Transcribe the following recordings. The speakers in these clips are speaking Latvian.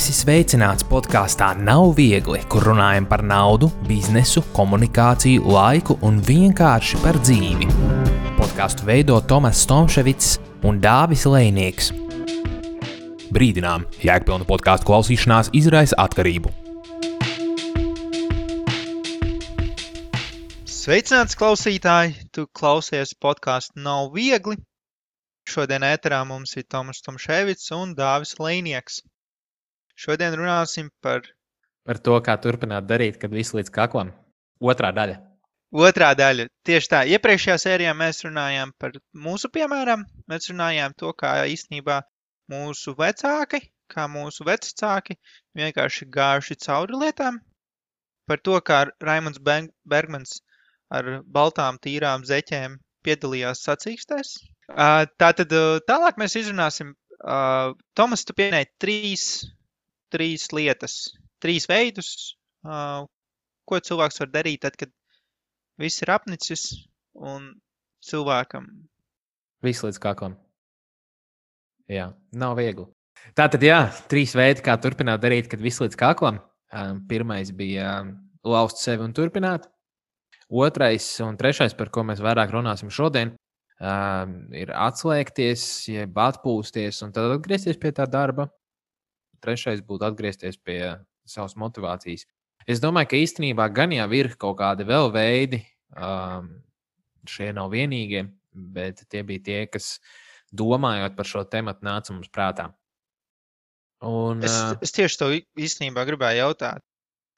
Esi sveicināts podkāstā Nav viegli, kur runājam par naudu, biznesu, komunikāciju, laiku un vienkārši par dzīvi. Podkāstu veido Tomas Stomševics un Dāvis Lejnieks. Brīdinām, jēgpilna podkāstu klausīšanās izraisa atkarību. Sveicināts klausītāji, tu klausies podkāstu Nav viegli. Šodien ēterā mums ir Tomas Stomševics un Dāvis Lejnieks. Šodien runāsim par to, kā turpināt darīt, kad viss līdz kaklam. Otrā daļa. Otrā daļa. Tieši tā. Iepriekšējā sērijā mēs runājām par mūsu piemēram. Mēs runājām to, kā īstenībā mūsu vecāki, kā mūsu vecāki vienkārši gājuši cauri lietām. Par to, kā Raimunds Bergmans ar baltām tīrām zeķēm piedalījās sacīkstēs. Tātad tālāk mēs izrunāsim. Tomas, tu pieminēji trīs lietas, trīs veidus, ko cilvēks var darīt tad, kad viss ir apnicis un cilvēkam. Viss līdz kaklam. Jā, nav viegli. Tātad, trīs veidi, kā turpināt darīt, kad viss līdz kaklam. Pirmais bija lauzt sevi un turpināt. Otrais un trešais, par ko mēs vairāk runāsim šodien, ir atslēgties, jeb atpūsties un tad atgriezties pie tā darba. Trešais būtu atgriezties pie savas motivācijas. Es domāju, ka īstenībā gan jau ir kaut kādi vēl veidi, šie nav vienīgie, bet tie bija tie, kas domājot par šo tematu nāca mums prātā. Un, es tieši to īstenībā gribēju jautāt,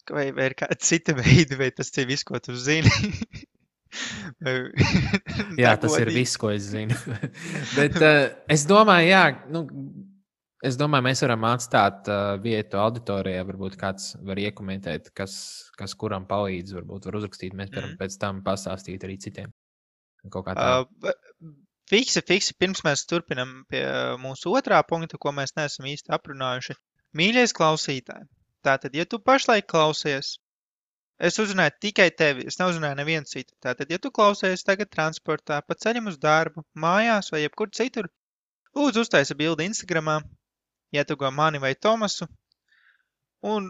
vai ir kāda cita veida, vai tas ir viss, ko tu zini? Jā, tas ir viss, ko es zinu. Bet es domāju, es domāju, mēs varam atstāt vietu auditorijā, varbūt kāds var iekomentēt, kas kuram palīdz, varbūt var uzrakstīt, mēs varam pēc tam pastāstīt arī citiem. Kaut kā tā. Fiksi, pirms mēs turpinam pie mūsu otrā punkta, ko mēs neesam īsti aprunājuši. Mīļais klausītāji, tātad, ja tu pašlaik klausies, es uzrunāju tikai tevi, es neuzrunāju nevienu citu. Tātad, ja tu klausies tagad transportā, pa ceļam uz darbu, mājās vai jebkur citur, lūdzu uztaisa bildi Instagramā, ietugo mani vai Tomasu un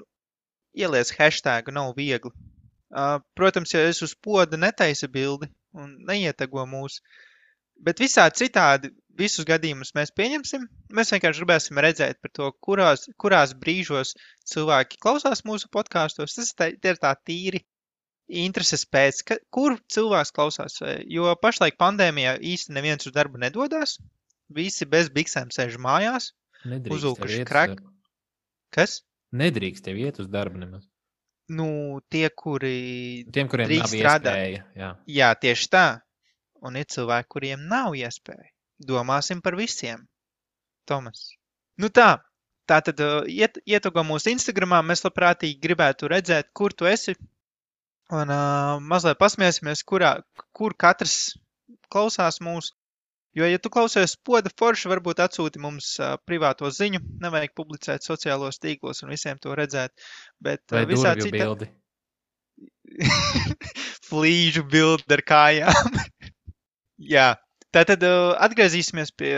ieliec hashtagu nav viegli. Protams, ja es uz poda netaisa bildi un neietago mūs, bet visādi citādi visus gadījumus mēs pieņemsim. Mēs vienkārši gribēsim redzēt par to, kurās brīžos cilvēki klausās mūsu podkāstos. Tas ir tā tīri intereses pēc, kur cilvēks klausās. Jo pašlaik pandēmijā īsti neviens uz darbu nedodās. Visi bez biksēm sēž mājās. Uzulkuši krak. Kas? Nedrīkst tev iet uz darbu nemaz. Tiem, kuriem nav iespēja. Jā, tieši tā. Un ir cilvēki, kuriem nav iespēja. Domāsim par visiem. Tomas. Tātad ietugo mūsu Instagramā. Mēs labprātīgi gribētu redzēt, kur tu esi. Un mazliet pasmiesimies, kur katrs klausās mūs. Jo, ja tu klausies poda forši, varbūt atsūti mums privāto ziņu, nevajag publicēt sociālos tīklos un visiem to redzēt. Bet vai durvju bildi? Flīžu bildi ar kājām. Jā, tātad atgriezīsimies pie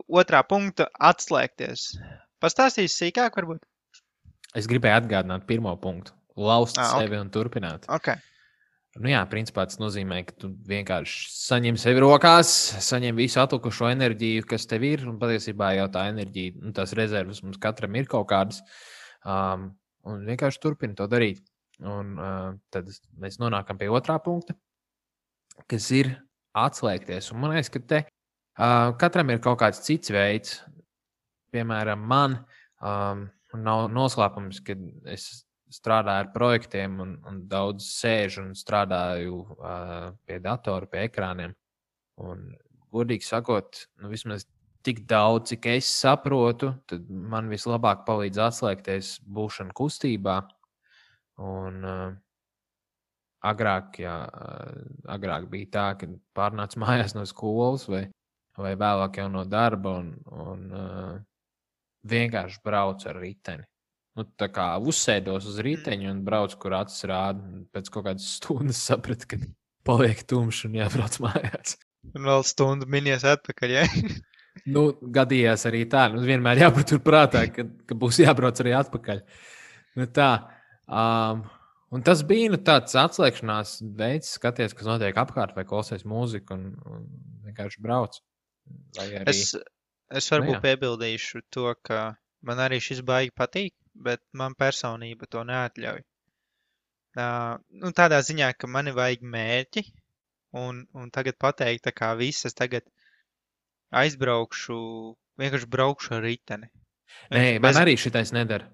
otrā punkta - atslēgties. Pastāstīsi sīkāk varbūt? Es gribēju atgādināt pirmo punktu - lauzt sevi un turpināt. Okay. Principā tas nozīmē, ka tu vienkārši saņem sevi rokās, saņem visu atlikušo enerģiju, kas tev ir, un patiesībā jau tā enerģija, tās rezervas mums katram ir kaut kādas, un vienkārši turpina to darīt. Un tad mēs nonākam pie otrā punkta, kas ir atslēgties. Un man liekas, ka te katram ir kaut kāds cits veids. Piemēram, man nav noslēpums, ka es strādāju ar projektiem un daudz sēžu un strādāju pie datora, pie ekrāniem. Un, godīgi sakot, vismaz tik daudz, cik es saprotu, tad man vislabāk palīdz atslēgties būšana kustībā. Un agrāk bija tā, ka pārnāc mājās no skolas vai vēlāk jau no darba un vienkārši braucu ar riteni. Tā kā uzsēdos uz riteņu un braucu, kur acis rāda. Pēc kaut kādas stundas sapratu, ka paliek tumšs un jābrauc mājās. Un vēl stundu minies atpakaļ, ja? Nu, gadījās arī tā. Nu, vienmēr jāpatur prātā, ka būs jābrauc arī atpakaļ. Nu, tā. Un tas bija tāds atslēgšanās veids, skaties, kas notiek apkārt, vai klausies mūziku un vienkārši brauc. Vai arī... Es varbūt piebildīšu to, ka man arī šis baigi patīk, bet man personība to neatļauj. Tādā ziņā, ka mani vajag mērķi, un tagad pateikt, tā kā viss, es tagad aizbraukšu, vienkārši braukšu ar riteni. Nē, man arī šitais nedara.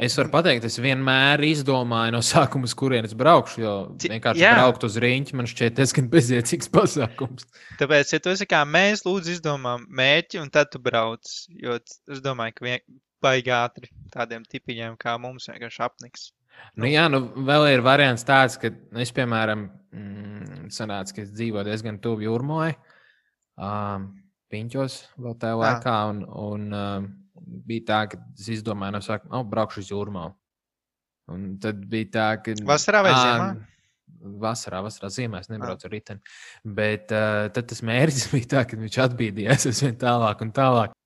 Es varu pateikt, es vienmēr izdomāju no sākuma, uz kurienes braukšu, jo vienkārši braukt uz riņķi man šķiet diezgan bezjēdzīgs pasākums. Tāpēc, ja tu esi kā mēs, lūdzu izdomām mērķi, un tad tu brauc, jo es domāju, ka baigi ātri tādiem tipiņiem kā mums vienkārši apniks. Vēl ir variants tāds, ka es, piemēram, sanāca, ka es dzīvoju diezgan tuvu Jūrmalai, Piņķos vēl tajā laikā, un bija tā, ka es izdomāju no sākuma, braukšu uz Jūrmalu. Un tad bija tā, ka... Vasarā vai ziemā? Vasarā, ziemā es nebraucu ar riteni. Bet tad tas mērķis bija tā, ka viņš atbīdījās es vien tālāk un tālāk.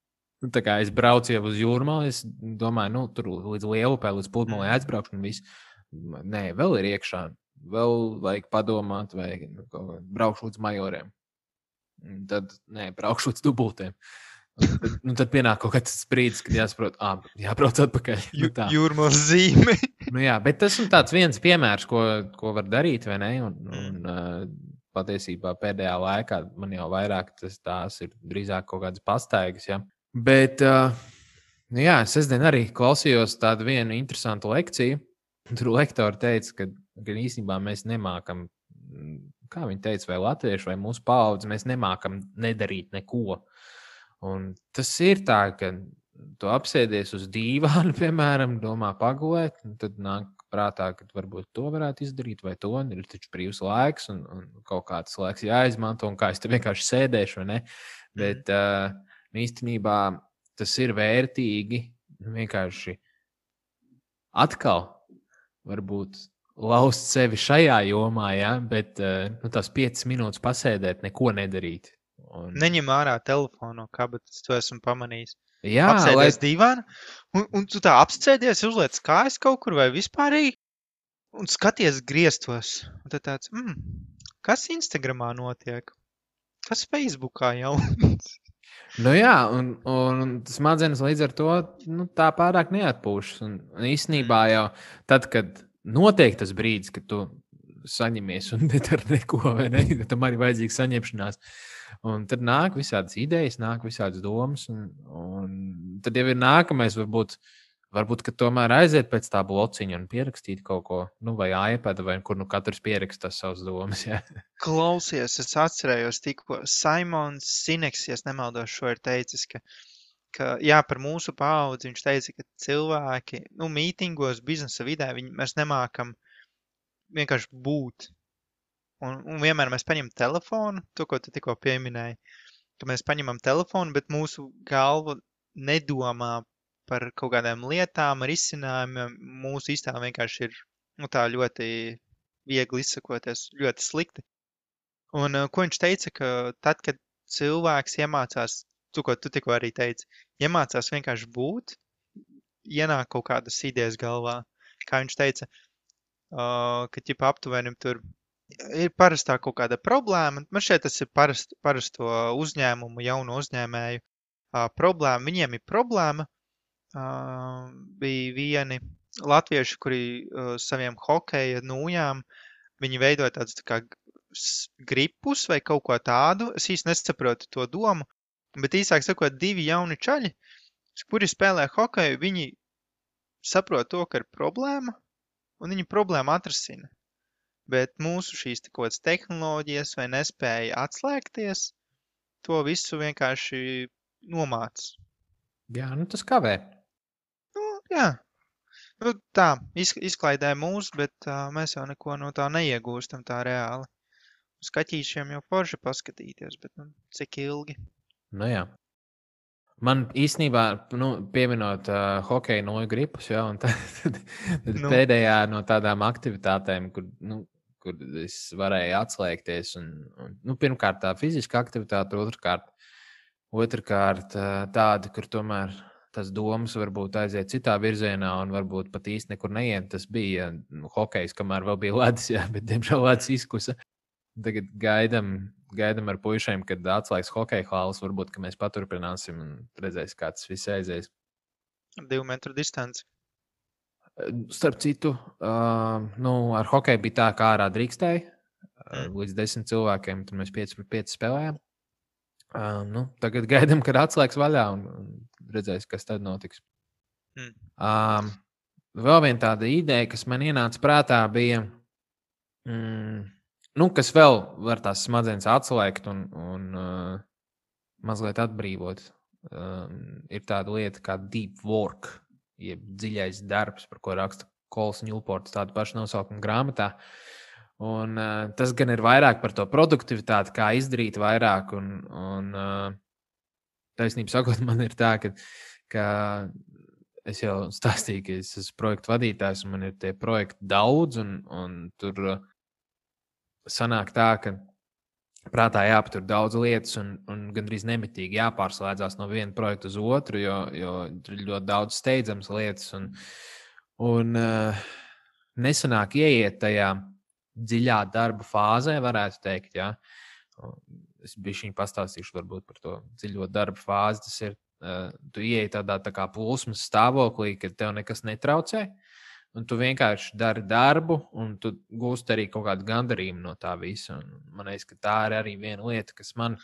Tā kā es braucu jau uz Jūrmalu, es domāju, tur līdz Lielupē, līdz Pludmalei aizbraukšu un viss. Nē, vēl ir iekšā. Vēl vajag padomāt, vai braukšu līdz Majoriem. Tad, braukšu līdz Dubultiem. Tad pienāk kaut kāds brīdis, kad jāsaprot, jābrauc atpakaļ. Jūrmalas zīme. Bet tas ir tāds viens piemērs, ko var darīt, vai ne? Un patiesībā pēdējā laikā man jau vairāk tās ir drīzāk kaut kādas pastaigas, ja? Bet, sestdien arī klausījos tādu vienu interesantu lekciju. Tur lektori teica, ka īstenībā mēs nemākam, kā viņi teica, vai latvieši, vai mūsu paudze, mēs nemākam nedarīt neko. Un tas ir tā, ka tu apsēdies uz dīvānu, piemēram, domā pagulēt, un tad nāk prātā, ka varbūt to varētu izdarīt, vai to, un ir taču brīvs laiks, un kaut kāds laiks jāizmanto, un kā es te vienkārši sēdēšu, vai ne? Bet īstenībā tas ir vērtīgi vienkārši atkal varbūt laust sevi šajā jomā, ja? Bet tās 5 minūtes pasēdēt, neko nedarīt. Neņem ārā telefonu no kabatas, to esmu pamanījis. Jā, apsēdies dīvānu, un tu tā apsēdies, uzliec kājas kaut kur vai vispārīgi, un skaties griestos. Un tad tāds, kas Instagramā notiek? Kas Facebookā jauns? Un smadzenes līdz ar to tā pārāk neatpūšas. Un īstenībā jau tad, kad notiek tas brīdis, kad tu saņemies un nedari neko, vai ne? Tam arī vajadzīga saņemšanās. Un tad nāk visādas idejas, nāk visādas domas, un tad jau ir nākamais, varbūt ka tomēr aiziet pēc tā blociņa un pierakstīt kaut ko, vai iPad, vai kur katrs pierakstās savas domas. Ja. Klausies, es atcerējos tikko, Simons Sineks, ja nemaldos, šo ir teicis, ka par mūsu paudzi viņš teica, ka cilvēki, mītingos, biznesa vidē, mēs nemākam vienkārši būt. Un vienmēr mēs paņemam telefonu, to, ko tu tikko pieminēji, ka mēs paņemam telefonu, bet mūsu galva nedomā par kaut kādām lietām, risinājumiem. Mūsu iztēle vienkārši ir tā ļoti viegli izsakoties, ļoti slikti. Un ko viņš teica, ka tad, kad cilvēks iemācās, to, ko tu tikko arī teici, iemācās vienkārši būt, ienāk kaut kādas idejas galvā. Kā viņš teica, ka aptuvenim tur ir parastā kaut kāda problēma. Man šeit tas ir parasto uzņēmumu, jaunu uzņēmēju problēma. Viņiem ir problēma. Bija vieni latvieši, kuri saviem hokeja nūjām, viņi veidoja tādus tā kā gripus vai kaut ko tādu. Es īsti nesaprotu to domu, bet īsāk sakot, 2 jauni čaļi, kuri spēlē hokeju, viņi saprot to, ka ir problēma, un viņi problēmu atrasina. Bet mūsu šīs kaut kādas tehnoloģijas vai nespēja atslēgties, to visu vienkārši nomāc. Jā, tas kavē. Jā. Tā, izklaidē mūs, bet mēs jau neko no tā neiegūstam tā reāli. Uz kaķīšiem jau forši paskatīties, bet cik ilgi? Jā. Man īstenībā, pieminot hokeju noju gripus, ja, un tad pēdējā no tādām aktivitātēm, kur es varēju atslēgties, un pirmkārt tā fiziska aktivitāte, otrkārt Otrkārt, tādi, kur tomēr tas domas varbūt aiziet citā virzienā un varbūt pat īsti nekur neiet. Tas bija hokejs, kamēr vēl bija ledus, jā, bet diemžēl ledus izkusa. Tagad gaidam ar puišiem, kad atslēgs hokeja hāls. Varbūt, ka mēs paturpināsim un redzēsim, kā tas viss aizies. 2 metru distanci. Starp citu, ar hokeju bija tā, kā ārā drīkstēja līdz 10 cilvēkiem. Tad mēs 5-5 spēlējām. Tagad gaidām, kad atslēgs vaļā un redzēs, kas tad notiks. Vēl viena tāda ideja, kas man ienāca prātā, bija, kas vēl var tās smadzenes atslēgt un mazliet atbrīvot. Ir tāda lieta kā deep work, jeb dziļais darbs, par ko raksta Kols Ņūports tādu pašu nosaukumu grāmatā. Un, tas gan ir vairāk par to produktivitāti, kā izdarīt vairāk. Un taisnība sakot, man ir tā, ka es jau stāstīju, ka es esmu projektu vadītājs un man ir tie projekti daudz. Un tur sanāk tā, ka prātā jāpatur daudz lietas un gandrīz nemitīgi jāpārslēdzās no viena projekta uz otru, jo ir ļoti daudz steidzamas lietas. Un nesanāk ieiet tajā dziļā darba fāzē, varētu teikt. Ja? Es bišķiņ pastāstīšu varbūt par to dziļo darba fāzi. Tas ir, tu ieej tādā tā kā plūsmas stāvoklī, kad tev nekas netraucē, un tu vienkārši dari darbu, un tu gūsti arī kaut kādu gandarījumu no tā visa. Un man liekas, ka tā ir arī viena lieta, kas man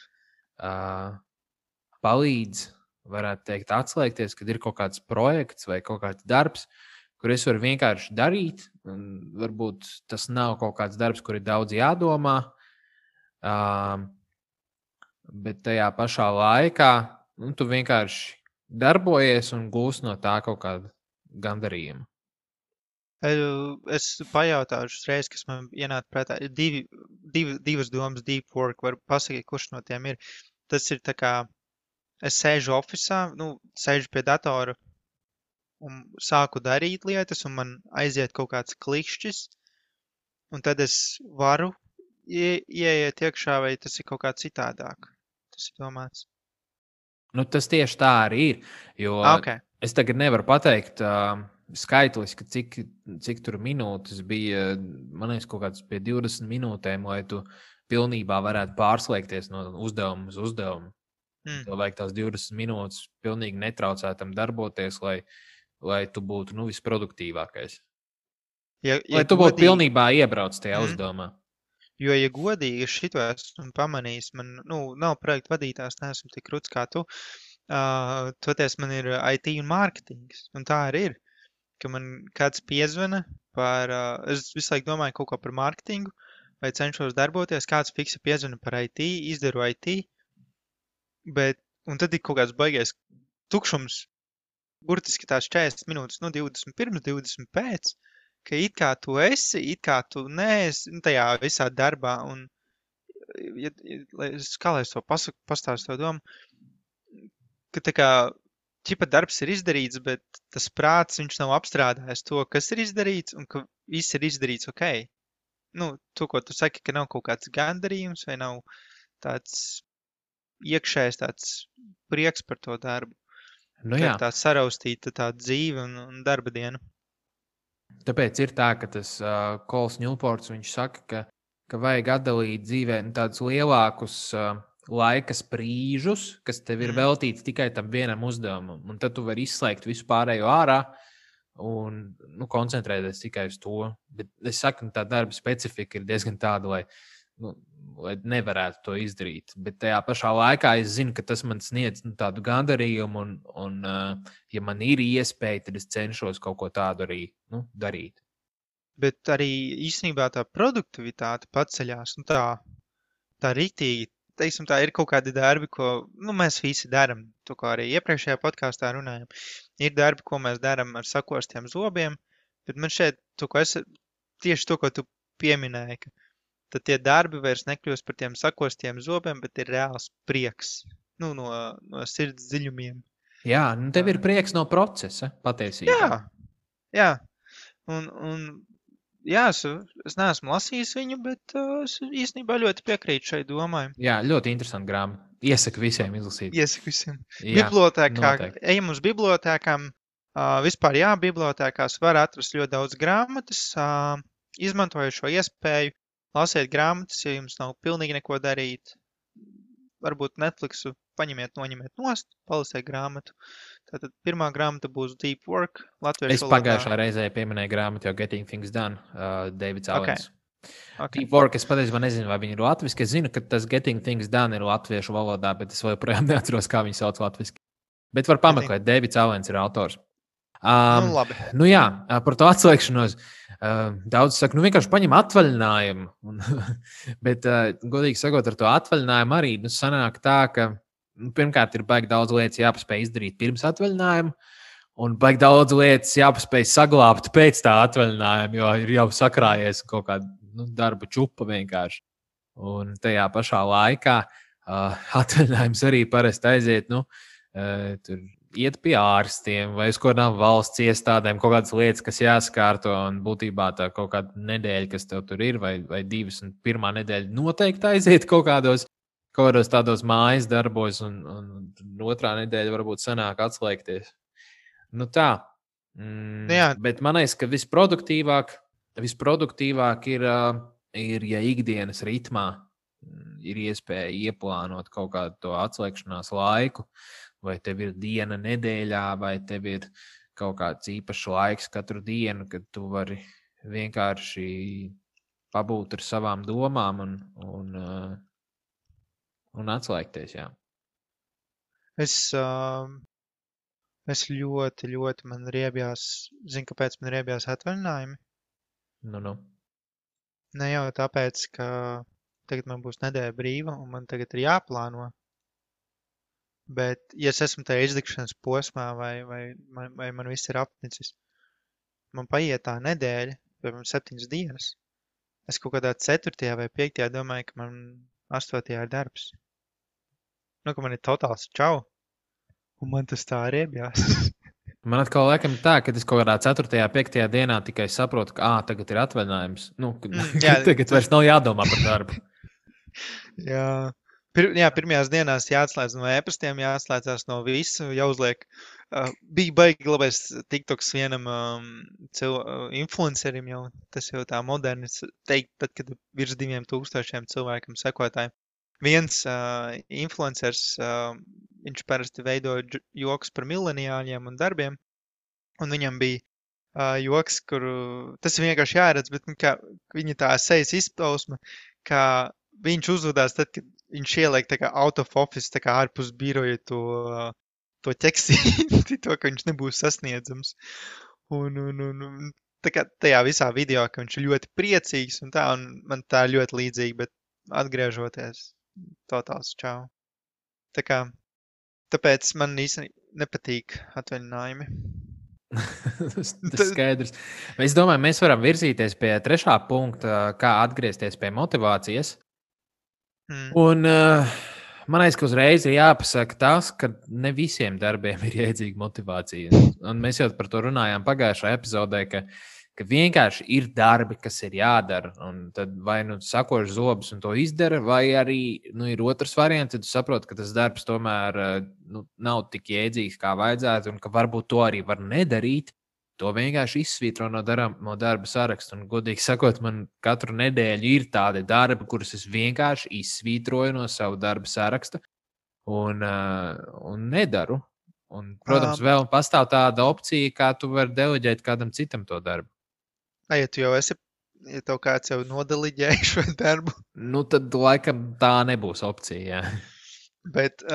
palīdz, varētu teikt, atslēgties, kad ir kaut kāds projekts vai kaut kāds darbs, kur es varu vienkārši darīt. Varbūt tas nav kaut kāds darbs, kur ir daudz jādomā, bet tajā pašā laikā tu vienkārši darbojies un gūsi no tā kaut kādu gandarījumu. Es pajautāšu uzreiz, kas man ienāca prātā. Divas domas, deep work, var pasakīt, kurš no tiem ir. Tas ir tā kā, es sēžu ofisā, sēžu pie datora, un sāku darīt lietas, un man aiziet kaut kāds klikšķis, un tad es varu ieiet iekšā, vai tas ir kaut kā citādāk. Tas ir domāts. Tas tieši tā arī ir, jo es tagad nevaru pateikt skaitliski, cik tur minūtes bija, man liekas, kaut kāds pie 20 minūtēm, lai tu pilnībā varētu pārslēgties no uzdevuma uz uzdevumu. Tev vajag tās 20 minūtes pilnīgi netraucētam darboties, lai tu būtu visproduktīvākais. Lai tu būtu pilnībā iebrauc tajā uzdevumā. Jo, ja godīgi, es šito esmu pamanījis, man nav projektu vadītājs, neesmu tik ruds kā tu, toties man ir IT un mārketings, un tā arī ir, ka man kāds piezvana par, es visu laiku domāju kaut ko par mārketingu, vai cenšos darboties, kāds fiksi piezvana par IT, izdaru IT, un tad ir kaut kāds baigais tukšums, burtiski tās 40 minūtes, 20 pirms, 20 pēc, ka it kā tu esi, it kā tu neesi tajā visā darbā, un kā lai es to pastāstu to domu, ka tā kā ķipa darbs ir izdarīts, bet tas prāts, viņš nav apstrādājis to, kas ir izdarīts, un ka viss ir izdarīts ok. To, ko tu saki, ka nav kaut kāds gandarījums, vai nav tāds iekšējs tāds prieks par to darbu. Jā. Tā saraustīta tā dzīve un darba diena. Tāpēc ir tā, ka tas Kols Ņūports, viņš saka, ka vajag atdalīt dzīvē tādus lielākus laika sprīžus, kas tev ir veltīts tikai tam vienam uzdevumam. Un tad tu vari izslēgt visu pārējo ārā un koncentrēties tikai uz to. Bet es saku, tā darba specifika ir diezgan tāda, lai nevarētu to izdarīt. Bet tajā pašā laikā es zinu, ka tas man sniedz tādu gandarījumu, un ja man ir iespēja, tad es cenšos kaut ko tādu arī darīt. Bet arī īstenībā tā produktivitāte paceļās, tā riktīgi, teiksim, tā ir kaut kādi darbi, ko mēs visi daram, to, ko arī iepriekšējā podkāstā runājam. Ir darbi, ko mēs daram ar sakostiem zobiem, bet man šeit tieši to, ko tu pieminēji, ka tad tie darbi vairs nekļūst par tiem sakostiem zobiem, bet ir reāls prieks, no sirds dziļumiem. Jā, tev ir prieks no procesa, patiesībā. Jā. Jā, es neesmu lasījis viņu, bet es īstenībā ļoti piekrītu šai domai. Jā, ļoti interesanti grāmata. Iesaku visiem izlasīt. Iesaku visiem. Jā, Bibliotēkā, noteikti. ejam uz bibliotēkām. Vispār jā, bibliotēkās var atrast ļoti daudz grāmatas. Izmantoju šo iespēju, lasiet grāmatas, ja jums nav pilnīgi neko darīt. Varbūt Netflixu paņemiet, noņemiet nost, palasiet grāmatu. Tātad pirmā grāmata būs Deep Work, latviešu Es valodā. pagājušā reizē pieminēju grāmatu jau Getting Things Done, Davids Ok. Allens. Ok. Deep Work, es patiesībā nezinu, vai viņi ir latviski. Es zinu, ka tas Getting Things Done ir latviešu valodā, bet es joprojām neatceros, kā viņi sauc latviski. Bet var pameklēt, Davids Allens ir autors. Nu, labi. Nu jā, par to atslēgšanos. Daudz saka, nu vienkārši paņem atvaļinājumu. Bet, godīgi sakot, ar to atvaļinājumu arī sanāk tā, ka pirmkārt ir baigi daudz lietas jāpaspēj izdarīt pirms atvaļinājuma, un baigi daudz lietas jāpaspēj saglabāt pēc tā atvaļinājuma, jo ir jau sakrājies kaut kāda darba čupa vienkārši. Un tajā pašā laikā atvaļinājums arī parasti aiziet, tur iet pie ārstiem vai uz kādām valsts iestādēm, kaut kādas lietas, kas jāskārto, un būtībā tā kaut kāda nedēļa, kas tev tur ir, vai divas, un pirmā nedēļa noteikti aiziet kaut kādos tādos mājas darbos, un otrā nedēļa varbūt sanāk atslēgties. Nu tā. Jā. Bet man liekas, ka visproduktīvāk ir, ja ikdienas ritmā ir iespēja ieplānot kaut kādu to atslēgšanās laiku, vai tev ir diena nedēļā, vai tev ir kaut kāds īpašs laiks katru dienu, kad tu vari vienkārši pabūt ar savām domām un atslēgties, jā. Es ļoti man riebjās, zinu, kāpēc man riebjās atvaļinājumi. Nu. Ne jau tāpēc, ka tagad man būs nedēļa brīva, un man tagad ir jāplāno. Bet, ja es esmu tajā izdegšanas posmā, vai man viss ir apnicis, man paiet tā nedēļa, piemēram, 7 dienas. Es kaut kādā 4. vai 5. domāju, ka man 8. ir darbs. Ka man ir totāls čau. Un man tas tā riebjās. Man atkal laikam tā, ka es kaut kādā 4. 5. dienā tikai saprotu, ka tagad ir atvaļinājums. Tagad vairs nav jādomā par darbu. Jā. Pirmajās dienās jāatslēdz no e-pastiem, jāatslēdzās no visu, jāuzliek. Bija baigi labais TikToks vienam influencerim jau, tas jau tā moderni teikt, tad, kad virs 2000 cilvēkam sekotāji. Viens influencers, viņš parasti veidoja joks par mileniāļiem un darbiem, un viņam bija joks, kuru, tas ir vienkārši jāredz, bet viņa tā sejas izpausme, ka viņš uzvedās tad, kad viņš ieliek tā kā out of office, tā kā ārpus biroja to ķeksīti, to, ka viņš nebūs sasniedzams. Un tā kā tajā visā video, ka viņš ir ļoti priecīgs un man tā ļoti līdzīgi, bet atgriežoties, totāls čau. Tāpēc man īstenībā nepatīk atvaļinājumi. Tas skaidrs. Es domāju, mēs varam virzīties pie 3. punkta, kā atgriezties pie motivācijas. Un man liekas, ka uzreiz ir jāpasaka tas, ka ne visiem darbiem ir jēdzīga motivācija. Un mēs jau par to runājām pagājušajā epizodē, ka vienkārši ir darbi, kas ir jādara. Un tad vai sakoši zobus un to izdara, vai arī ir otrs variants, tad tu saproti, ka tas darbs tomēr nav tik jēdzīgs, kā vajadzētu, un ka varbūt to arī var nedarīt. To vienkārši izsvītro no darba saraksta. Un, godīgi sakot, man katru nedēļu ir tādi darbi, kurus es vienkārši izsvītroju no savu darba saraksta un nedaru. Un, protams, vēl pastāv tāda opcija, kā tu vari deleģēt kādam citam to darbu. Ja tu jau esi, ja tev kāds jau nodeliģēja šo darbu? Tad laikam tā nebūs opcija, jā. Bet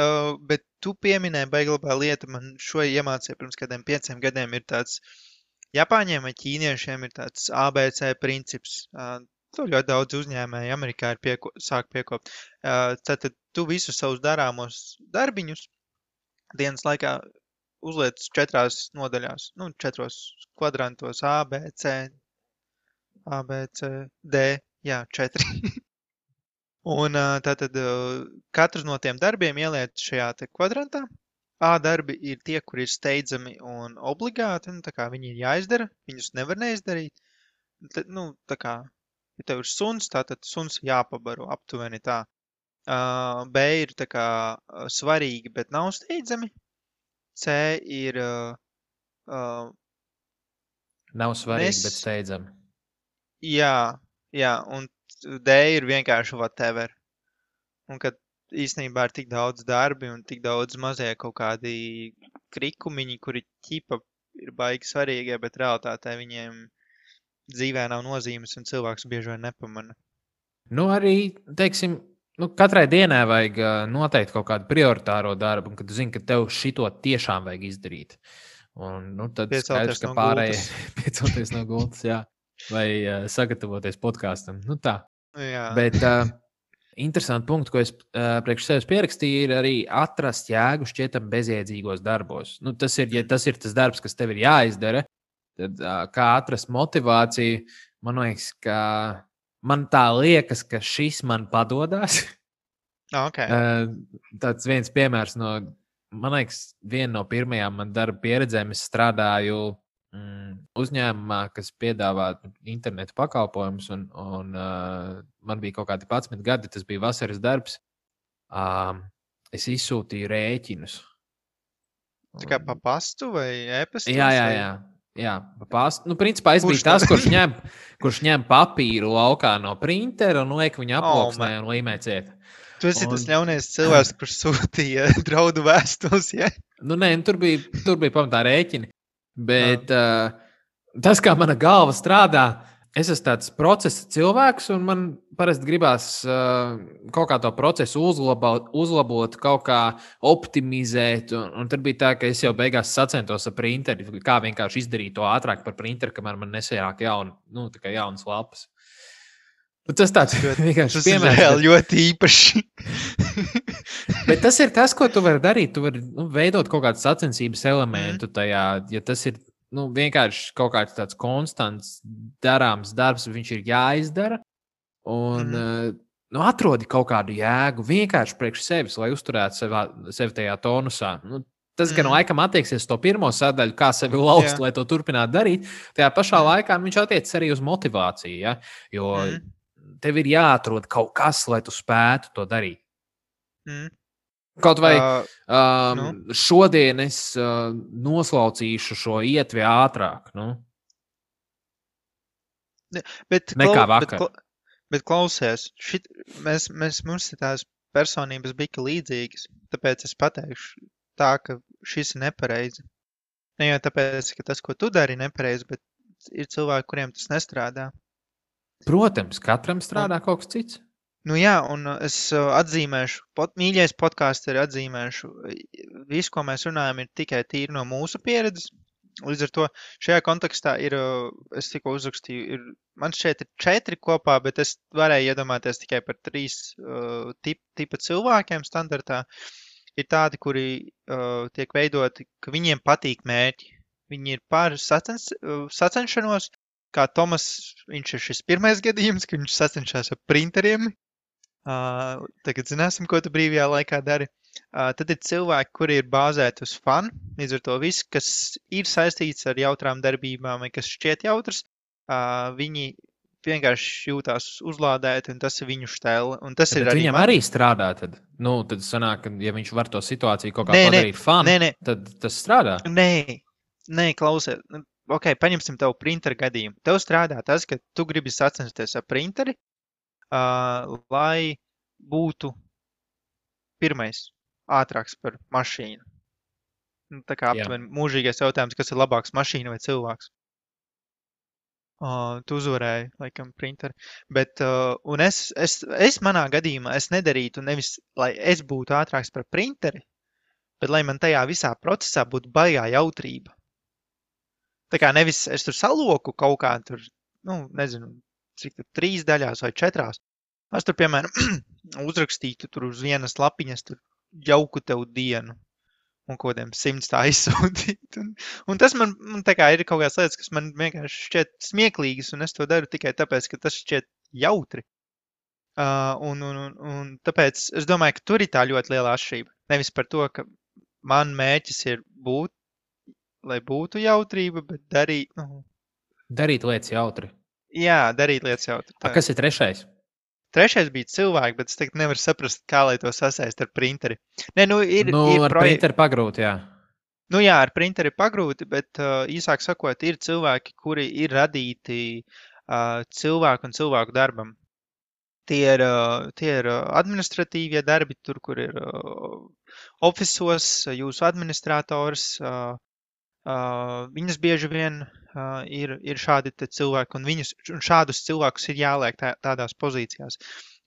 tu pieminēji baigi labā lieta, man šo iemācīja pirms kādiem 5 gadiem ir tāds, Japāņiem vai ķīniešiem ir tāds ABC princips. To ļoti daudz uzņēmēji Amerikā ir sāk piekopt. Tātad tu visus savus darāmos darbiņus dienas laikā uzliec 4 nodaļās, 4 kvadrantos A, B, C, D, jā, 4. Un tātad katrs no tiem darbiem ieliec šajā te kvadrantā. A darbi ir tie, kuri ir steidzami un obligāti, tā kā viņi ir jāizdara, viņus nevar neizdarīt. Tā kā, ja tev ir suns, tātad suns jāpabaro aptuveni tā. B ir tā kā svarīgi, bet nav steidzami. C ir Nav svarīgi, bet nes... steidzami. Jā, un D ir vienkārši whatever. Un kad īstenībā ir tik daudz darbi un tik daudz mazie kaut kādi krikumiņi, kuri ķipa ir baigi svarīgie, bet realitātē viņiem dzīvē nav nozīmes un cilvēks bieži vien nepamana. Nu, arī, teiksim, katrai dienai vajag noteikti kaut kādu prioritāro darbu, un kad tu zini, ka tev šito tiešām vajag izdarīt. Un, tad skaidrs, ka pārējie piecelties no gultas, jā, vai sagatavoties podkāstam. Tā. Jā. Bet interesanti punkti, ko es priekš sevis pierakstīju, ir arī atrast jēgu šķietam bezjēdzīgos darbos. Tas ir, ja tas ir tas darbs, kas tev ir jāizdara, tad kā atrast motivāciju, man liekas, ka man tā liekas, ka šis man padodas. Okay. Tāds viens piemērs no, man liekas, viena no pirmajām man darba pieredzēm. Es strādāju uzņēmumā, kas piedāvā internetu pakalpojumus, un man bija kaut kādi 11 gadi, tas bija vasaras darbs. Es izsūtīju rēķinus. Tā kā pa pastu vai e-pastos? Jā, pa pastu. Principā es biju tas, kurš ņem papīru laukā no printera un liek viņu aploksnē un līmē ciet. Tu esi tas ļaunais cilvēks, kurš sūtīja draudu vēstules, ja? Nē, tur bija pamatā rēķini. Bet tas, kā mana galva strādā, es esmu tāds procesa cilvēks, un man parasti gribās kaut kā to procesu uzlabot, kaut kā optimizēt. Un tad bija tā, ka es jau beigās sacentos ar printeri, kā vienkārši izdarīt to ātrāk par printeri, kamēr man nesajāk jaunas lapas. Tas tāds vienkārši piemērs. Tas ir ļoti īpaši. Bet tas ir tas, ko tu vari darīt. Tu vari veidot kaut kādu sacensības elementu tajā. Ja tas ir vienkārši kaut kāds tāds konstants darāms darbs, viņš ir jāizdara. Un atrodi kaut kādu jēgu vienkārši priekš sevis, lai uzturētu sevi tajā tonusā. Tas gan laikam attieksies to pirmo sadaļu, kā sevi lauzt, lai to turpinātu darīt. Tajā pašā laikā viņš attiecas arī uz motivāciju. Ja? Jo tev ir jāatrod kaut kas, lai tu spētu to darīt. Kaut vai šodien es noslaucīšu šo ietvi ātrāk. Nekā vakar. Bet klausies, mums ir tās personības bija līdzīgas, tāpēc es pateikšu tā, ka šis ir nepareizi. Ne jau tāpēc, ka tas, ko tu dari, ir nepareizi, bet ir cilvēki, kuriem tas nestrādā. Protams, katram strādā kaut kas cits. Jā, un es atzīmēšu, mīļais podkāsteri atzīmēšu, visu, ko mēs runājam, ir tikai tīri no mūsu pieredzes. Līdz ar to šajā kontekstā ir, es tikko uzrakstīju, man šeit ir 4 kopā, bet es varēju iedomāties tikai par 3 tipa cilvēkiem standartā. Ir tādi, kuri tiek veidoti, ka viņiem patīk mērķi. Viņi ir par sacenšanos, kā Tomas, viņš ir šis pirmais gadījums, ka viņš sacenšās ar printeriem. Tagad zināsim, ko tu brīvajā laikā dari. Tad ir cilvēki, kuri ir bāzēti uz fanu, līdz ar to viss, kas ir saistīts ar jautrām darbībām vai kas šķiet jautrs, viņi vienkārši jūtās uzlādēti un tas ir viņu štēle. Un tas ir viņam arī strādā tad? Tad sanāk, ka ja viņš var to situāciju kaut kā padarīt fanu, tad tas strādā? Nē, klausies. Ok, paņemsim tev printeru gadījumu. Tev strādā tas, ka tu gribi sacensties ar printeri, lai būtu pirmais ātrāks par mašīnu. Tā kā aptuveni mūžīgais jautājums, kas ir labāks, mašīna vai cilvēks. Tu uzvarēji, laikam, printeri. Bet, un es manā gadījumā, es nedarītu nevis, lai es būtu ātrāks par printeri, bet lai man tajā visā procesā būtu baigā jautrība. Tā kā nevis es tur saloku kaut kā tur, nezinu, cik tur 3 daļās vai 4. Es tur, piemēram, uzrakstītu tur uz vienas lapiņas tur jauku tev dienu un kodiem 100 tā izsūtīt. Un tas man tā kā ir kaut kāds lietas, kas man vienkārši šķiet smieklīgas, un es to daru tikai tāpēc, ka tas šķiet jautri. Un tāpēc es domāju, ka tur ir tā ļoti liela atšķirība. Nevis par to, ka man mērķis ir lai būtu jautrība, bet darīt lietas jautri. Jā, darīt lietas jautri. Kas ir 3? Trešais bija cilvēki, bet es tagad nevaru saprast, kā lai to sasaist ar printeri. Nē, ir Ar printeru pagrūti, jā. Jā, ar printeri pagrūti, bet īsāk sakot, ir cilvēki, kuri ir radīti cilvēku un cilvēku darbam. Tie ir administratīvie darbi, tur, kur ir ofisos, jūsu administrators, viņas bieži vien ir šādi te cilvēki, un šādus cilvēkus ir jāliek tādās pozīcijās.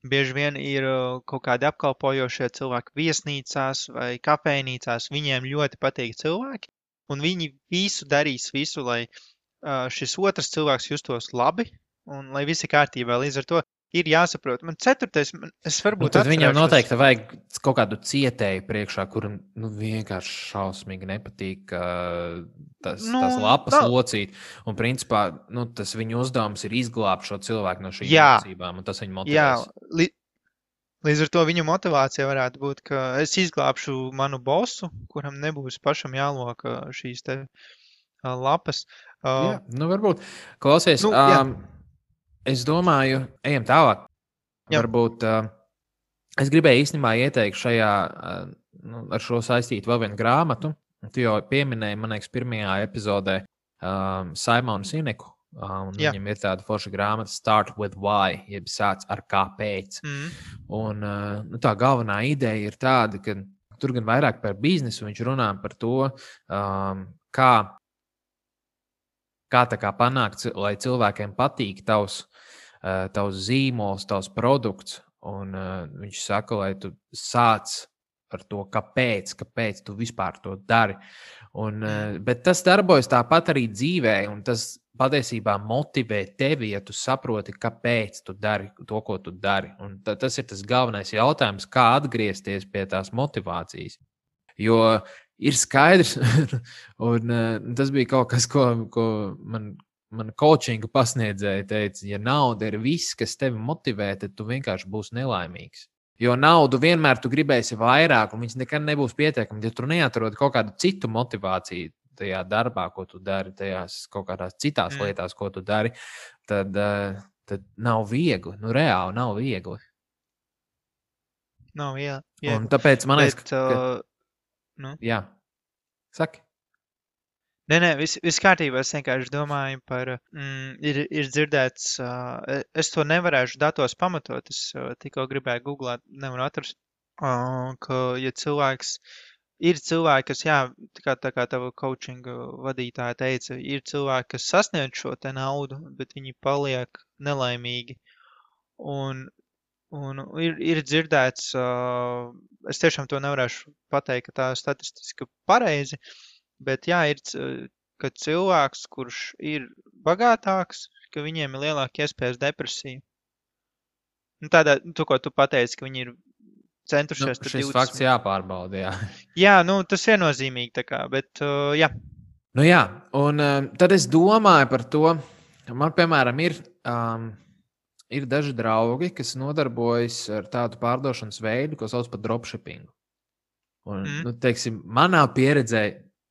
Bieži vien ir kaut kādi apkalpojošie cilvēki viesnīcās vai kafejnīcās, viņiem ļoti patīk cilvēki, un viņi darīs visu, lai šis otrs cilvēks justos labi, un lai visi kārtībā. Līdz ar to ir jāsaprot. Man ceturtais, es varbūt tad viņam noteikti vajag kaut kādu cietēju priekšā, kuram vienkārši šausmīgi nepatīk tās lapas locīt. Un principā tas viņa uzdevums ir izglābt šo cilvēku no šīm mācībām, un tas viņu motivēs. Jā, līdz ar to viņa motivācija varētu būt, ka es izglābšu manu bosu, kuram nebūs pašam jāloka šīs te lapas. Jā, varbūt. Klausies, es domāju, ejam tālāk. Jā. Varbūt es gribēju īstenībā ieteikt šajā, ar šo saistīt vēl vienu grāmatu. Tu jau pieminēji, man liekas, pirmajā epizodē Simonu Sineku. Viņam ir tāda forša grāmata Start with Why, jeb sāc ar kāpēc. Un tā galvenā ideja ir tāda, ka tur gan vairāk par biznesu viņš runā par to, kā tā kā panākt, lai cilvēkiem patīk tavs zīmols, tavs produkts. Un viņš saka, lai tu sāc ar to, kāpēc tu vispār to dari. Bet tas darbojas tāpat arī dzīvē, un tas patiesībā motivē tevi, ja tu saproti, kāpēc tu dari to, ko tu dari. Un tas ir tas galvenais jautājums, kā atgriezties pie tās motivācijas. Jo ir skaidrs, un tas bija kaut kas, ko man coachinga pasniedzēja teica, ja nauda ir viss, kas tevi motivē, tad tu vienkārši būsi nelaimīgs. Jo naudu vienmēr tu gribēsi vairāk, un viņas nekad nebūs pietiekami. Ja tu neatrod kaut kādu citu motivāciju tajā darbā, ko tu dari, tajās kaut kādās citās lietās, ko tu dari, tad nav viegli. Reāli nav viegli. Nav viegli. Un tāpēc man liekas, jā, saki. Nē, viss kārtībā. Es vienkārši domāju par, ir dzirdēts, es to nevarēšu datos pamatot, es tikko gribēju googlēt, nevaru atrast, ka, ja ir cilvēki, kas, tā kā tava coachinga vadītāja teica, ir cilvēki, kas sasniedz šo te naudu, bet viņi paliek nelaimīgi. Un ir dzirdēts, es tiešām to nevarēšu pateikt, ka tā statistiski pareizi, bet ir, ka cilvēks, kurš ir bagātāks, ka viņiem ir lielāka iespējas depresija. Tādā, ko tu pateici, ka viņi ir centušies. Šis fakts jāpārbauda, jā. Jā, tas viennozīmīgi tā kā, bet jā. Jā, un tad es domāju par to, man, piemēram, ir daži draugi, kas nodarbojas ar tādu pārdošanas veidu, ko sauc par dropshippingu. Un, teiksim, manā pieredzē,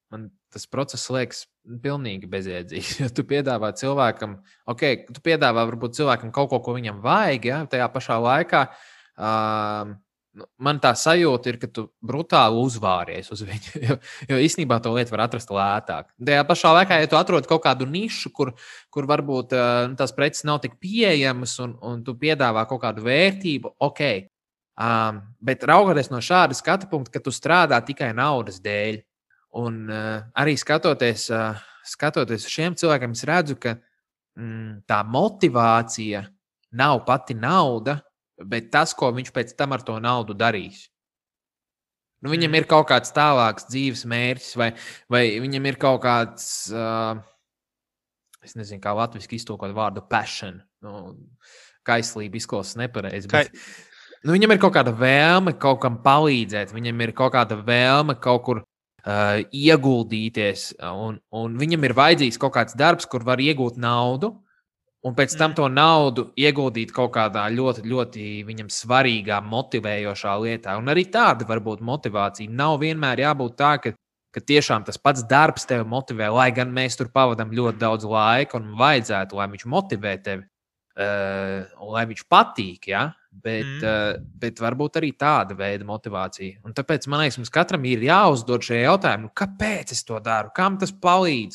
man tas process liekas pilnīgi bezjēdzīgs. Ja tu piedāvā cilvēkam, tu piedāvā varbūt cilvēkam kaut ko viņam vajag, ja, tajā pašā laikā man tā sajūta ir, ka tu brutāli uzvāries uz viņu, jo īstenībā to lietu var atrast lētāk. Tajā pašā laikā, ja tu atrod kaut kādu nišu, kur varbūt tās preces nav tik pieejamas un tu piedāvā kaut kādu vērtību, bet raugoties no šāda skatu punkta, ka tu strādā tikai naudas dēļ. Un arī skatoties uz šiem cilvēkiem, es redzu, ka tā motivācija nav pati nauda, bet tas, ko viņš pēc tam ar to naudu darīs. Viņam ir kaut kāds tālāks dzīves mērķis, vai viņam ir kaut kāds, es nezinu, kā latviski iztulkot vārdu passion. Kaislība izklausās nepareizi. Viņam ir kaut kāda vēlme kaut kam palīdzēt, viņam ir kaut kāda vēlme kaut kur ieguldīties, un viņam ir vajadzīgs kaut kāds darbs, kur var iegūt naudu, un pēc tam to naudu ieguldīt kaut kādā ļoti, ļoti viņam svarīgā, motivējošā lietā. Un arī tāda var būt motivācija. Nav vienmēr jābūt tā, ka tiešām tas pats darbs tevi motivē, lai gan mēs tur pavadām ļoti daudz laika, un vajadzētu, lai viņš motivē tevi, un lai viņš patīk, ja? bet varbūt arī tāda veida motivācija. Un tāpēc man liekas, mums katram ir jāuzdod šie jautājumi, kāpēc es to daru, kam tas palīdz.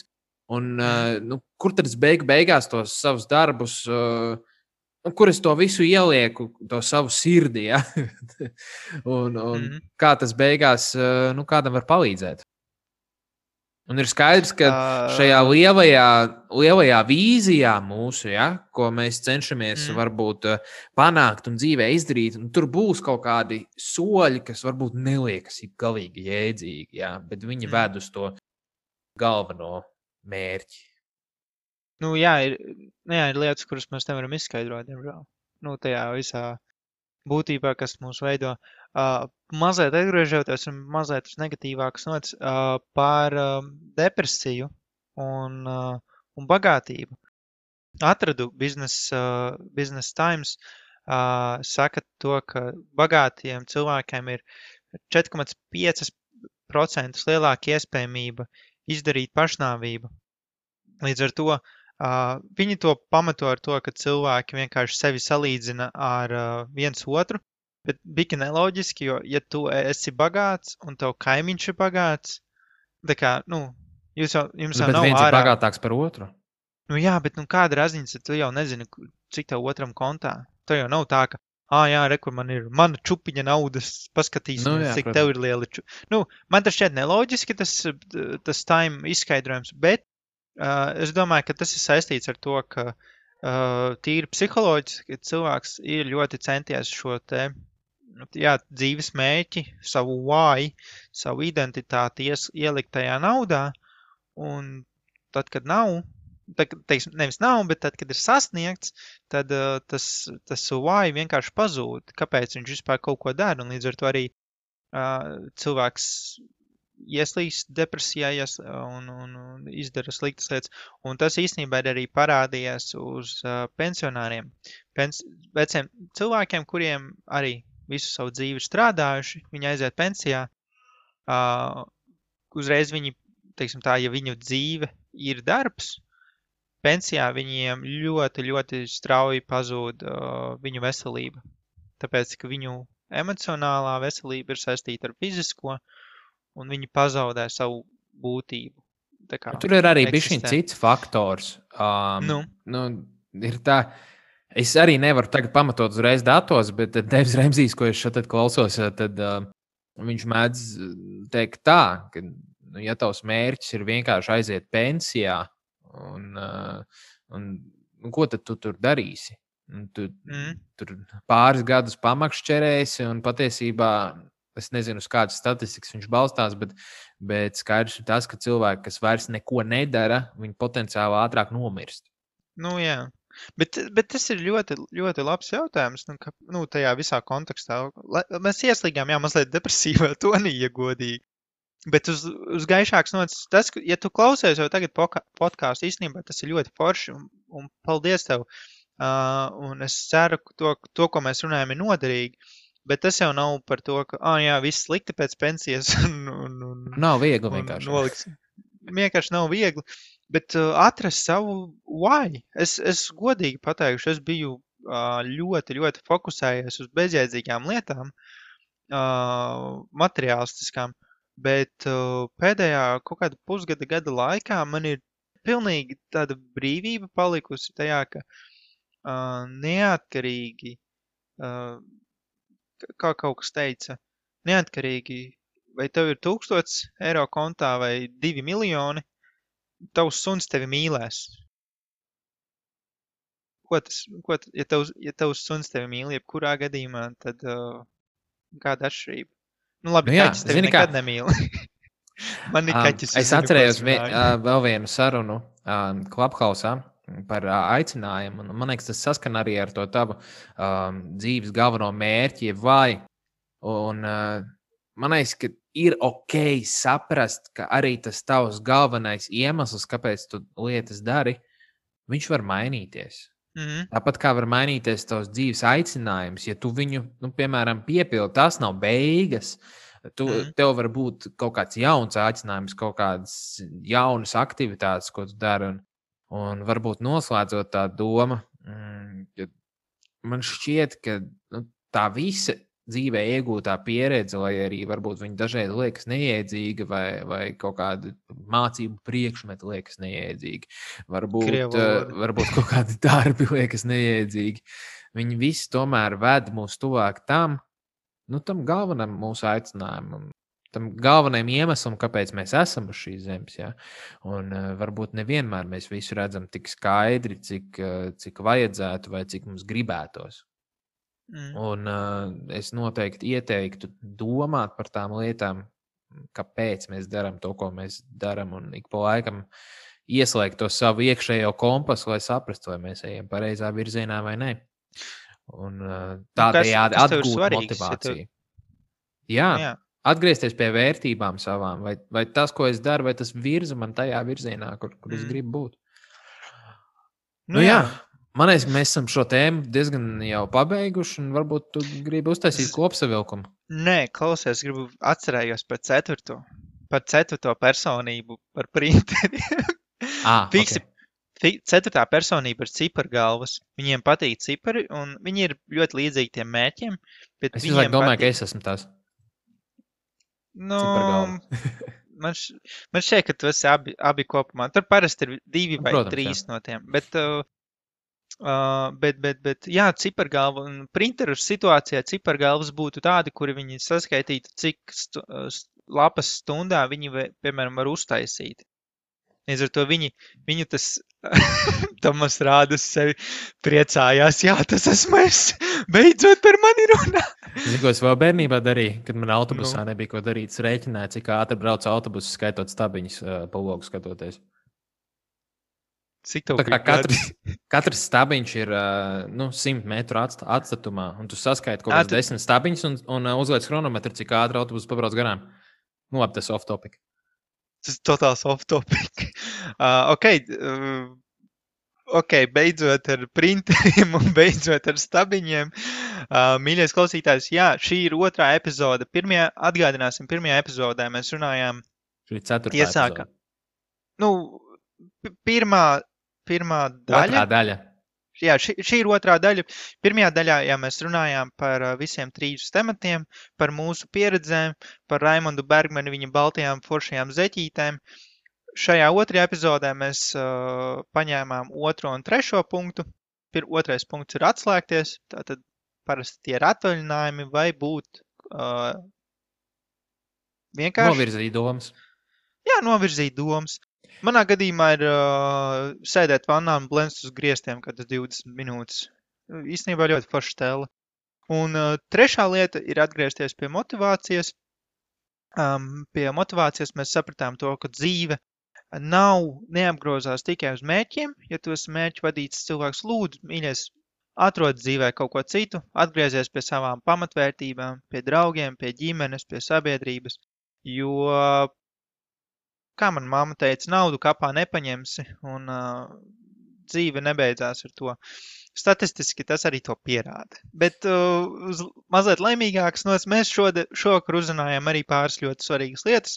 Un, kur tad es beigās tos savus darbus, kur es to visu ielieku, to savu sirdi, ja? un kā tas beigās kādam var palīdzēt. Un ir skaidrs, ka šajā lielajā vīzijā mūsu, ja, ko mēs cenšamies varbūt panākt un dzīvē izdarīt, un tur būs kaut kādi soļi, kas varbūt neliekas galīgi jēdzīgi, ja, bet viņi ved uz to galveno mērķi. Ir lietas, kuras mēs nevaram izskaidrot, diemžēl. Tajā visā būtībā, kas mūs veido. Mazliet atgriežoties un mazliet uz negatīvākas nots par depresiju un bagātību. Atradu Business Times, saka to, ka bagātiem cilvēkiem ir 4,5% lielāka iespējamība izdarīt pašnāvību. Līdz ar to viņi to pamato ar to, ka cilvēki vienkārši sevi salīdzina ar viens otru, bet bija neloģiski, jo, ja tu esi bagāts un tev kaimiņš ir bagāts, tā kā, jums jau nav viens ir bagātāks par otru. Bet kāda raziņas, tu jau nezini, cik tev otram kontā. Tev jau nav tā, ka, kur man ir mana čupiņa naudas, paskatīsimies, cik tev ir liela čupiņa. Man tas šķiet neloģiski, tas time izskaidrojums, bet es domāju, ka tas ir saistīts ar to, ka tīri psiholoģiski cilvēks ir ļoti centies šo te dzīves mērķi, savu why, savu identitāti ielikt tajā naudā, un tad, kad nav, nevis nav, bet tad, kad ir sasniegts, tad tas why vienkārši pazūd, kāpēc viņš vispār kaut ko dara, un līdz ar to arī cilvēks ieslīst depresijā un izdara sliktas lietas. Un tas īstenībā ir arī parādījies uz pensionāriem. Veciem cilvēkiem, kuriem arī visu savu dzīvi strādājuši, viņi aiziet pensijā, uzreiz viņi, teiksim tā, ja viņu dzīve ir darbs, pensijā viņiem ļoti, ļoti strauji pazūd viņu veselība. Tāpēc, ka viņu emocionālā veselība ir saistīta ar fizisko, un viņi pazaudē savu būtību. Tur ir arī bišķiņ cits faktors. Ir tā, es arī nevaru tagad pamatot uzreiz datos, bet Devs Remzijs, ko es šeit klausos, tad viņš mēdz teikt tā, ka, ja tavs mērķis ir vienkārši aiziet pensijā, un ko tad tu tur darīsi? Tur pāris gadus pamakšķerēsi, un patiesībā es nezinu, uz kādas statistikas viņš balstās, bet skaidrs ir tas, ka cilvēki, kas vairs neko nedara, viņi potenciāli ātrāk nomirst. Jā. Bet tas ir ļoti, ļoti labs jautājums, tajā visā kontekstā. Mēs ieslīgām, mazliet depresīvā tonī, ja godīgi. Bet uz gaišāks nots, tas, ja tu klausies jau tagad podcastu, īstenībā tas ir ļoti forši, un paldies tev. Un es ceru, ka to, ko mēs runājam, ir noderīgi. Bet tas jau nav par to, ka, viss slikti pēc pensijas. Nav viegli vienkārši. Vienkārši nav viegli. Bet atrast savu why. Es godīgi pateikšu, es biju ļoti, ļoti fokusējies uz bezjēdzīgām lietām, materiālistiskām, bet pēdējā kaut kāda pusgada laikā man ir pilnīgi tāda brīvība palikusi tajā, ka neatkarīgi, kā kaut kas teica, neatkarīgi, vai tev ir 1000 eiro kontā vai 2 miljoni, tavs suns tevi mīlēs. Ja tavs suns tevi mīl, jebkurā gadījumā, tad kāda atšķirība? Labi, kaķis tevi nekad nemīl. Man ir kaķis. Es atcerējos vēl vienu sarunu Clubhouse par aicinājumu. Man liekas, tas saskan arī ar to tavu dzīves galveno mērķi, vai. Un man liekas, ka ir ok saprast, ka arī tas tavs galvenais iemesls, kāpēc tu lietas dari, viņš var mainīties. Tāpat kā var mainīties tavs dzīves aicinājums, ja tu viņu, piemēram, piepildi, tas nav beigas. Tev var būt kaut kāds jauns aicinājums, kaut kādas jaunas aktivitātes, ko tu dari. Un varbūt noslēdzot tā doma, ka man šķiet, ka tā visa dzīvē iegūtā pieredze, lai arī varbūt viņa dažreiz liekas neiedzīga vai kaut kāda mācību priekšmeti liekas neiedzīgi. Varbūt kaut kādi darbi liekas neiedzīgi. Viņi visi tomēr ved mūs tuvāk tam galvenam mūsu aicinājumam, tam galvenajam iemeslam, kāpēc mēs esam uz šīs zemes. Ja? Un varbūt nevienmēr mēs visu redzam tik skaidri, cik vajadzētu vai cik mums gribētos. Un es noteikti ieteiktu domāt par tām lietām, kāpēc mēs darām to, ko mēs darām, un ik pa laikam ieslēgt to savu iekšējo kompasu, lai saprastu, vai mēs ejam pareizā virzienā vai ne. Un tādējādi atgūt motivāciju. Jā, atgriezties pie vērtībām savām, vai tas, ko es daru, vai tas virza man tajā virzienā, kur es gribu būt. Jā. Man liekas, mēs esam šo tēmu diezgan jau pabeiguši, un varbūt tu gribi uztaisīt kopsavilkumu. Nē, klausies, gribu atcerējos par ceturto personību, par printeriem. Fiksi, ceturtā personība ir cipargalvas. Viņiem patīk cipari, un viņi ir ļoti līdzīgi tiem mērķiem. Bet es domāju, patīk... ka es esmu tās. Man šķiet, ka tu esi abi kopumā. Tur parasti ir 2 vai 3 no tiem. Bet jā, cipargalva un printeru situācijā cipargalvas būtu tādi, kuri viņi saskaitītu, cik lapas stundā viņi, piemēram, var uztaisīt. Līdz ar to viņu tas Tomas rādas sevi priecājās. Jā, tas esmu es. Beidzot par mani runā. Zinu, ko es vēl bērnībā darīju, kad man autobusā nebija ko darīt. Es rēķināju, cik ātri brauc autobusu, skaitot stabiņus pa logu skatoties. Katrs stabiņš ir 100 metru atstatumā, un tu skaiti kaut kāds 10 stabiņus un uzliec chronometru, cik ātri autobus pabrauc garām. Labi, tas off topic. Tas ir totāls off topic. Ok, beidzot ar printeriem un beidzot ar stabiņiem. Mīļais klausītājs, jā, šī ir 2. epizode. Atgādināsim, 1. epizodē mēs runājām. Šī ir 4. epizode. Pirmā daļa. Otrā daļa. Jā, šī ir 2. daļa. Pirmajā daļā mēs runājām par visiem 3 tematiem, par mūsu pieredzēm, par Raimondu Bergmanu, viņa baltajām foršajām zeķītēm. Šajā 2. epizodē mēs paņēmām 2. un 3. punktu. 2. punkts ir atslēgties, tātad parasti tie ir atvaļinājumi vai būt vienkārši... Novirzīt domas. Jā, novirzīt domas. Manā gadījumā ir sēdēt vannā un blenst uz griestiem, kad tas 20 minūtes. Īstenībā ļoti forša tēla. Un 3. lieta ir atgriezties pie motivācijas. Pie motivācijas mēs sapratām to, ka dzīve neapgrozās tikai uz mērķiem. Ja tu esi mērķu vadīts cilvēks, lūdzu, mīļais, atrod dzīvē kaut ko citu, atgriezies pie savām pamatvērtībām, pie draugiem, pie ģimenes, pie sabiedrības. Jo... Kā man mamma teica, naudu kapā nepaņemsi, un dzīve nebeidzās ar to. Statistiski tas arī to pierāda. Bet uz mazliet laimīgākas nots mēs šovakar uzrunājām arī pāris ļoti svarīgas lietas.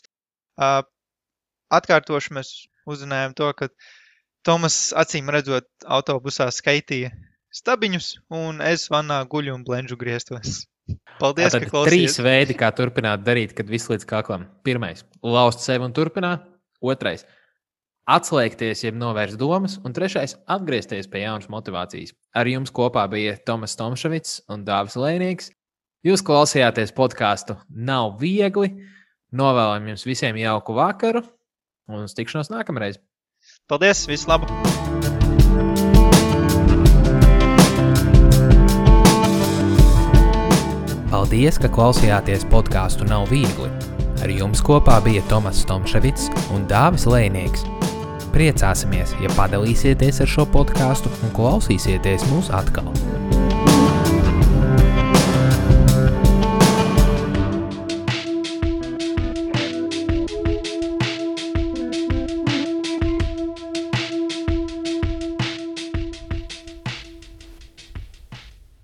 Atkārtoši mēs uzrunājām to, ka Tomas acīm redzot autobusā skaitīja stabiņus, un es vannā guļu un blenžu griestos. Paldies, ka klausies. 3 veidi, kā turpināt darīt, kad viss līdz kaklam. 1. Laust sevi un turpināt. 2. Atslēgties, jeb novērst domas. Un 3. Atgriezties pie jaunas motivācijas. Ar jums kopā bija Tomas Tomševits un Dāvis Lēnieks. Jūs klausījāties podcastu Nav viegli. Novēlam jums visiem jauku vakaru un uz tikšanos nākamreiz. Paldies, visu labu! Paldies, ka klausījāties podcastu Nav viegli. Ar jums kopā bija Tomas Tomševits un Dāvis Lēnieks. Priecāsimies, ja padalīsieties ar šo podcastu un klausīsieties mūs atkal.